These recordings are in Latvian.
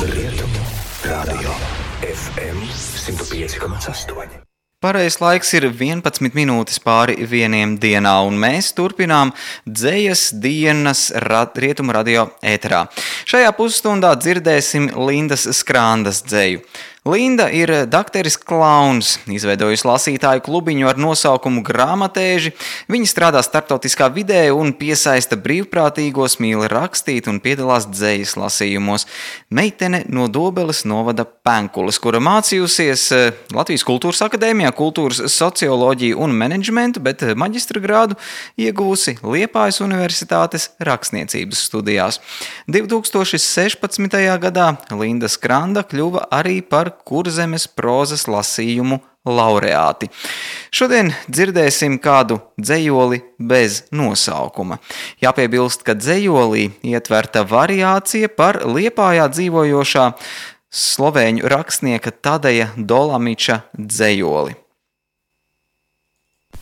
Rietumu radio FM 105,8. Pareizais laiks ir 11 minūtes pāri 1 dienā, un mēs turpinām dzejas dienas Rietumu radio ēterā. Šajā pusstundā dzirdēsim Lindas Skrandas dzeju. Linda ir dakteris klauns, izveidojusi lasītāju klubiņu ar nosaukumu Grāmatēži. Viņa strādā starptautiskā vidē un piesaista brīvprātīgos, mīl rakstīt un piedalās dzejas lasījumos. Meitene no Dobeles novada Penkules, kura mācījusies Latvijas Kultūras akadēmijā kultūras socioloģiju un menedžmentu, bet maģistra grādu ieguvusi Liepājas Universitātes rakstniecības studijās. 2016. gadā Linda Skranda kļuva arī par Kurzemes prozas lasījumu laureāti. Šodien dzirdēsim kādu dzejoli bez nosaukuma. Jāpiebilst, ka dzejolī ietverta variācija par Liepājā dzīvojošā slovēņu rakstnieka Tadeja Dolamiča dzejoli.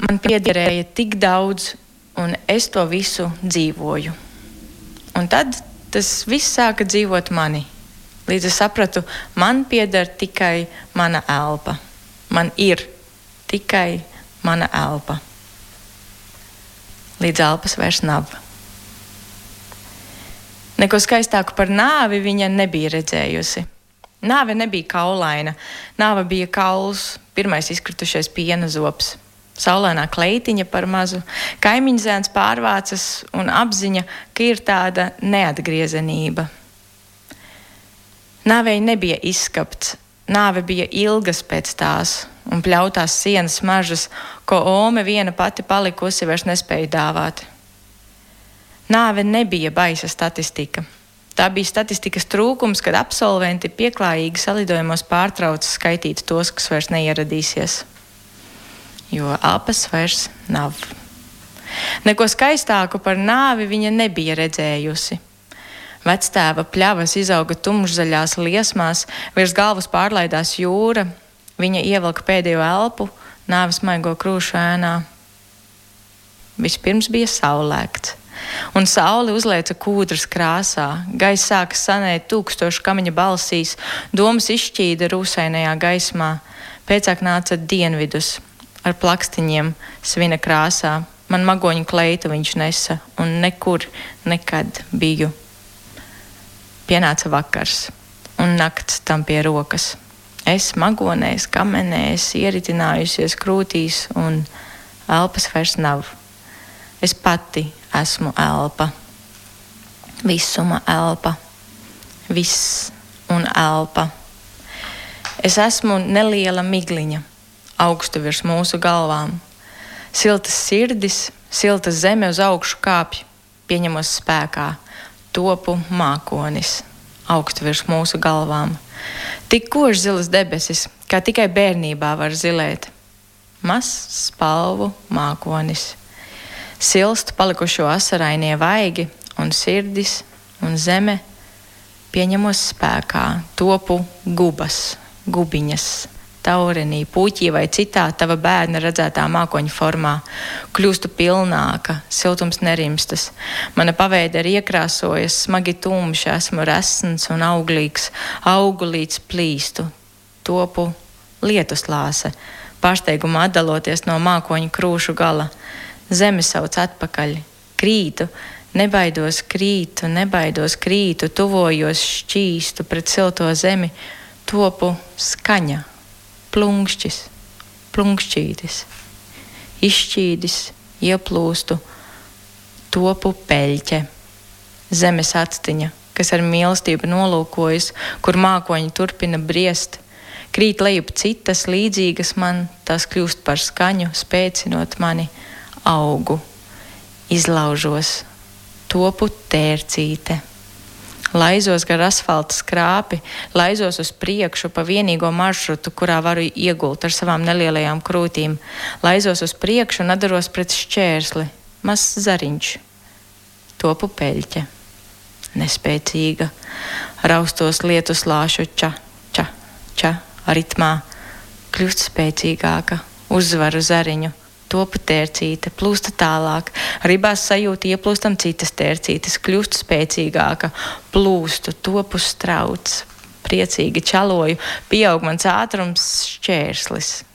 Man piederēja tik daudz, un es to visu dzīvoju. Un tad tas viss sāka dzīvot mani. Līdz es sapratu, man pieder tikai mana elpa. Man ir tikai mana elpa. Līdz elpas vairs nav. Neko skaistāku par nāvi viņa nebija redzējusi. Nāve nebija kaulaina. Nāve bija kauls, pirmais izkritušais piena zobs. Saulainā kleitiņa par mazu, kaimiņzēns pārvācas un apziņa, ka ir tāda neatgriezenība. Nāvei nebija izskapts, nāve bija ilgas pēc tās un pļautās sienas mažas, ko ome viena pati palikusi vairs nespēja dāvāt. Nāve nebija baisa statistika. Tā bija statistikas trūkums, kad absolventi pieklājīgi salidojumos pārtrauca skaitīt tos, kas vairs neieradīsies. Jo elpas vairs nav. Neko skaistāku par nāvi viņa nebija redzējusi. Vectēva pļavas izauga tumšzaļās liesmās, virs galvas pārlaidās jūra, viņa ievelka pēdējo elpu, nāves maigo krūšu ēnā. Vispirms bija saulēkts, un saule uzlēca kūdras krāsā, gaiss sāka sanēt tūkstošu kamiņa balsīs, domas izšķīda rūsainajā gaismā, pēcāk nāca dienvidus ar plakstiņiem svina krāsā, man magoņu kleitu viņš nesa, un nekur nekad biju. Pienāca vakars, un nakts tam pie rokas. Es magonēs, kamenēs, ieritinājusies krūtīs, un elpas vairs nav. Es pati esmu elpa. Visuma elpa. Viss un elpa. Es esmu neliela migliņa, augstu virs mūsu galvām. Siltas sirdis, silta zeme uz augšu kāpj, pieņemos spēkā. Topu mākonis, augstu virs mūsu galvām. Tik koši zilas debesis, kā tikai bērnībā var zilēt. Mazs spalvu mākonis. Silst palikušo asarainie vaigi, un sirdis un zeme pieņemos spēkā. Topu gubas, gubiņas, taurenī, puķī vai citā tava bērna redzētā mākoņa formā. Kļūstu pilnāka, siltums nerimstas. Mana paveide ir iekrāsojas, smagi tumša, esmu resns un auglīgs, augu līdz plīstu. Topu lietuslāse, pārsteigumā atdaloties no mākoņa krūšu gala. Zeme sauc atpakaļ, krītu, nebaidos krītu, tuvojos šķīstu pret silto zemi. Topu skaņa. Plunkšķis, plunkšķītis, izšķīdis, ieplūstu, topu peļķe, zemes atstiņa, kas ar mīlestību nolūkojas, kur mākoņi turpina briest, krīt lejup citas līdzīgas man, tās kļūst par skaņu, spēcinot mani, augu, izlaužos, topu tērcīte. Laizos gar asfalta skrāpi, laizos uz priekšu pa vienīgo maršrutu, kurā varu iegult ar savām nelielajām krūtīm. Laizos uz priekšu un atdaros pret šķērsli, mazs zariņš. Topu peļķe, nespēcīga, raustos lietuslāšu ča, ča, ča, ritmā, kļūst spēcīgāka, uzvaru zariņu. Topu tērcīte, plūsta tālāk, ribās sajūta ieplūstam citas tērcītes, kļūst spēcīgāka, plūstu, topu strauts, priecīgi čaloju, pieaug mans ātrums šķērslis.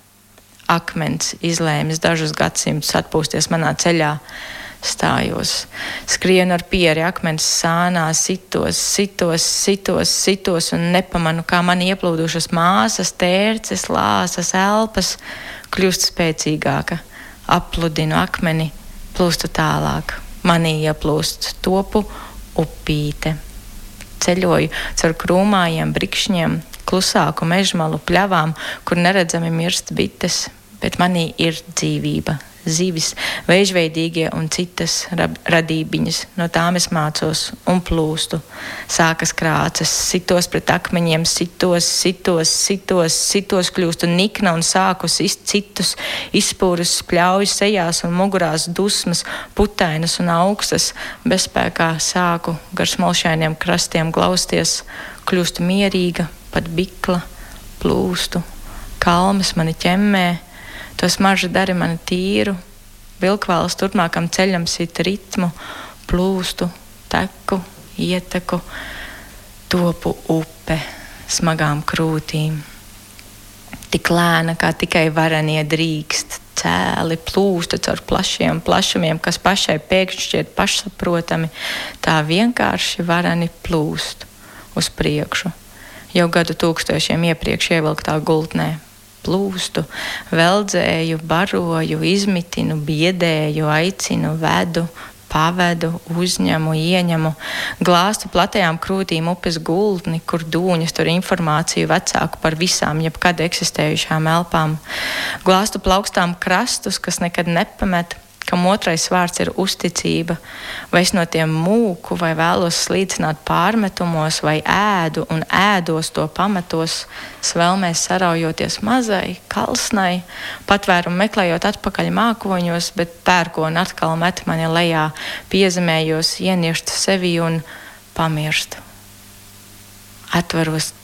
Akmens izlēmis dažus gadsimtus atpūsties manā ceļā. Stājos, skrienu ar pieri akmens sānā, sitos un nepamanu, kā man ieplūdušas māsas, tērces, lāsas, elpas kļūst spēcīgāka. Apludinu akmeni, plūstu tālāk. Manī ieplūst topu upīte. Ceļoju caur krūmājiem, brikšņiem, klusāku mežmalu pļavām, kur neredzami mirst bites, bet manī ir dzīvība. Zivis, veižveidīgie un citas radībiņas, no tām es mācos un plūstu. Sākas krācas, sitos pret akmeņiem, sitos, kļūstu nikna un sāku sist citus, izspūrus spļaujas sejās un mugurās dusmas, putainas un augstas, bezspēkā sāku gar smolšainiem krastiem glausties, kļūstu mierīga, pat bikla, plūstu, kalmas mani ķemmē, to smarža dari mani tīru, vilkvāls turpmākam ceļam sit ritmu, plūstu, teku, ieteku, topu upe smagām krūtīm. Tik lēna, kā tikai varenie drīkst, cēli plūsta caur plašiem plašumiem, kas pašai pēkšņi šķiet pašsaprotami, tā vienkārši vareni plūst uz priekšu, jau gadu tūkstošiem iepriekš ievilktā gultnē. Plūstu, veldzēju, baroju, izmitinu, biedēju, aicinu, vedu, pavedu, uzņemu, ieņemu, glāstu platajām krūtīm upes gultni, kur dūņas tur informāciju vecāku par visām jebkad eksistējušām elpām. Glāstu plaukstām krastus, kas nekad nepamet, kam otrais vārds ir uzticība, vai es no tiem mūku, vai vēlos slīcināt pārmetumos, vai ēdu un ēdos to pamatos, svelmēs saraujoties mazai, kalsnai, patvērumu meklējot atpakaļ mākoņos, bet pērkoni atkal met mani lejā, piezemējos, ienieštu sevi un pamirstu. Atveros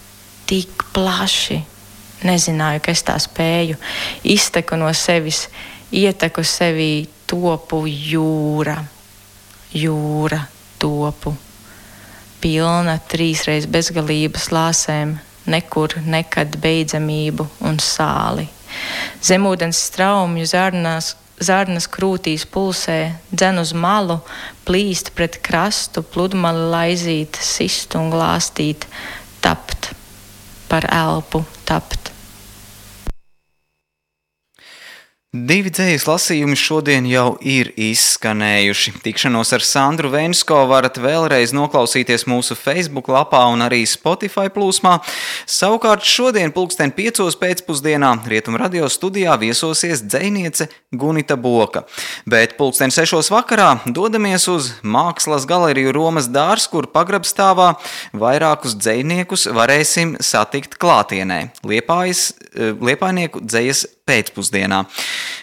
tik plaši, nezināju, ka es tā spēju, izteku no sevis, ieteku sevī topu jūra, topu, pilna 3 reiz bezgalības lāsēm, nekur nekad beidzamību un sāli. Zemūdens straumju zārnas krūtīs pulsē, dzen uz malu, plīst pret krastu, pludmali laizīt, sist un glāstīt, tapt, par elpu tapt. 2 dzejas lasījumi šodien jau ir izskanējuši. Tikšanos ar Sandru Vensko varat vēlreiz noklausīties mūsu Facebook lapā un arī Spotify plūsmā. Savukārt šodien 5:00 pēcpusdienā Rietumu radio studijā viesosies dzejniece Gunita Boka. Bet 6:00 vakarā dodamies uz Mākslas galeriju Romas dārs, kur pagrabstāvā vairākus dzejniekus varēsim satikt klātienē. Liepājnieku dzejas pēcpusdienā.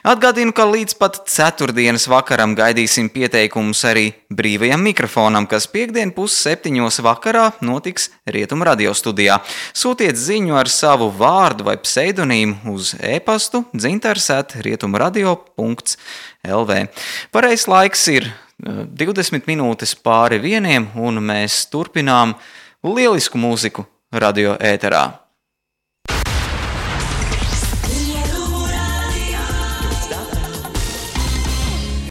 Atgādinu, ka līdz pat 4. vakaram gaidīsim pieteikumus arī brīvajam mikrofonam, kas 5:30 vakarā notiks Rietumu radio studijā. Sūtiet ziņu ar savu vārdu vai pseidonīmu uz e-pastu dzintars@rietumradio.lv. Pareizs laiks ir 20 minūtes pāri 1, un mēs turpinām lielisku mūziku radio ēterā.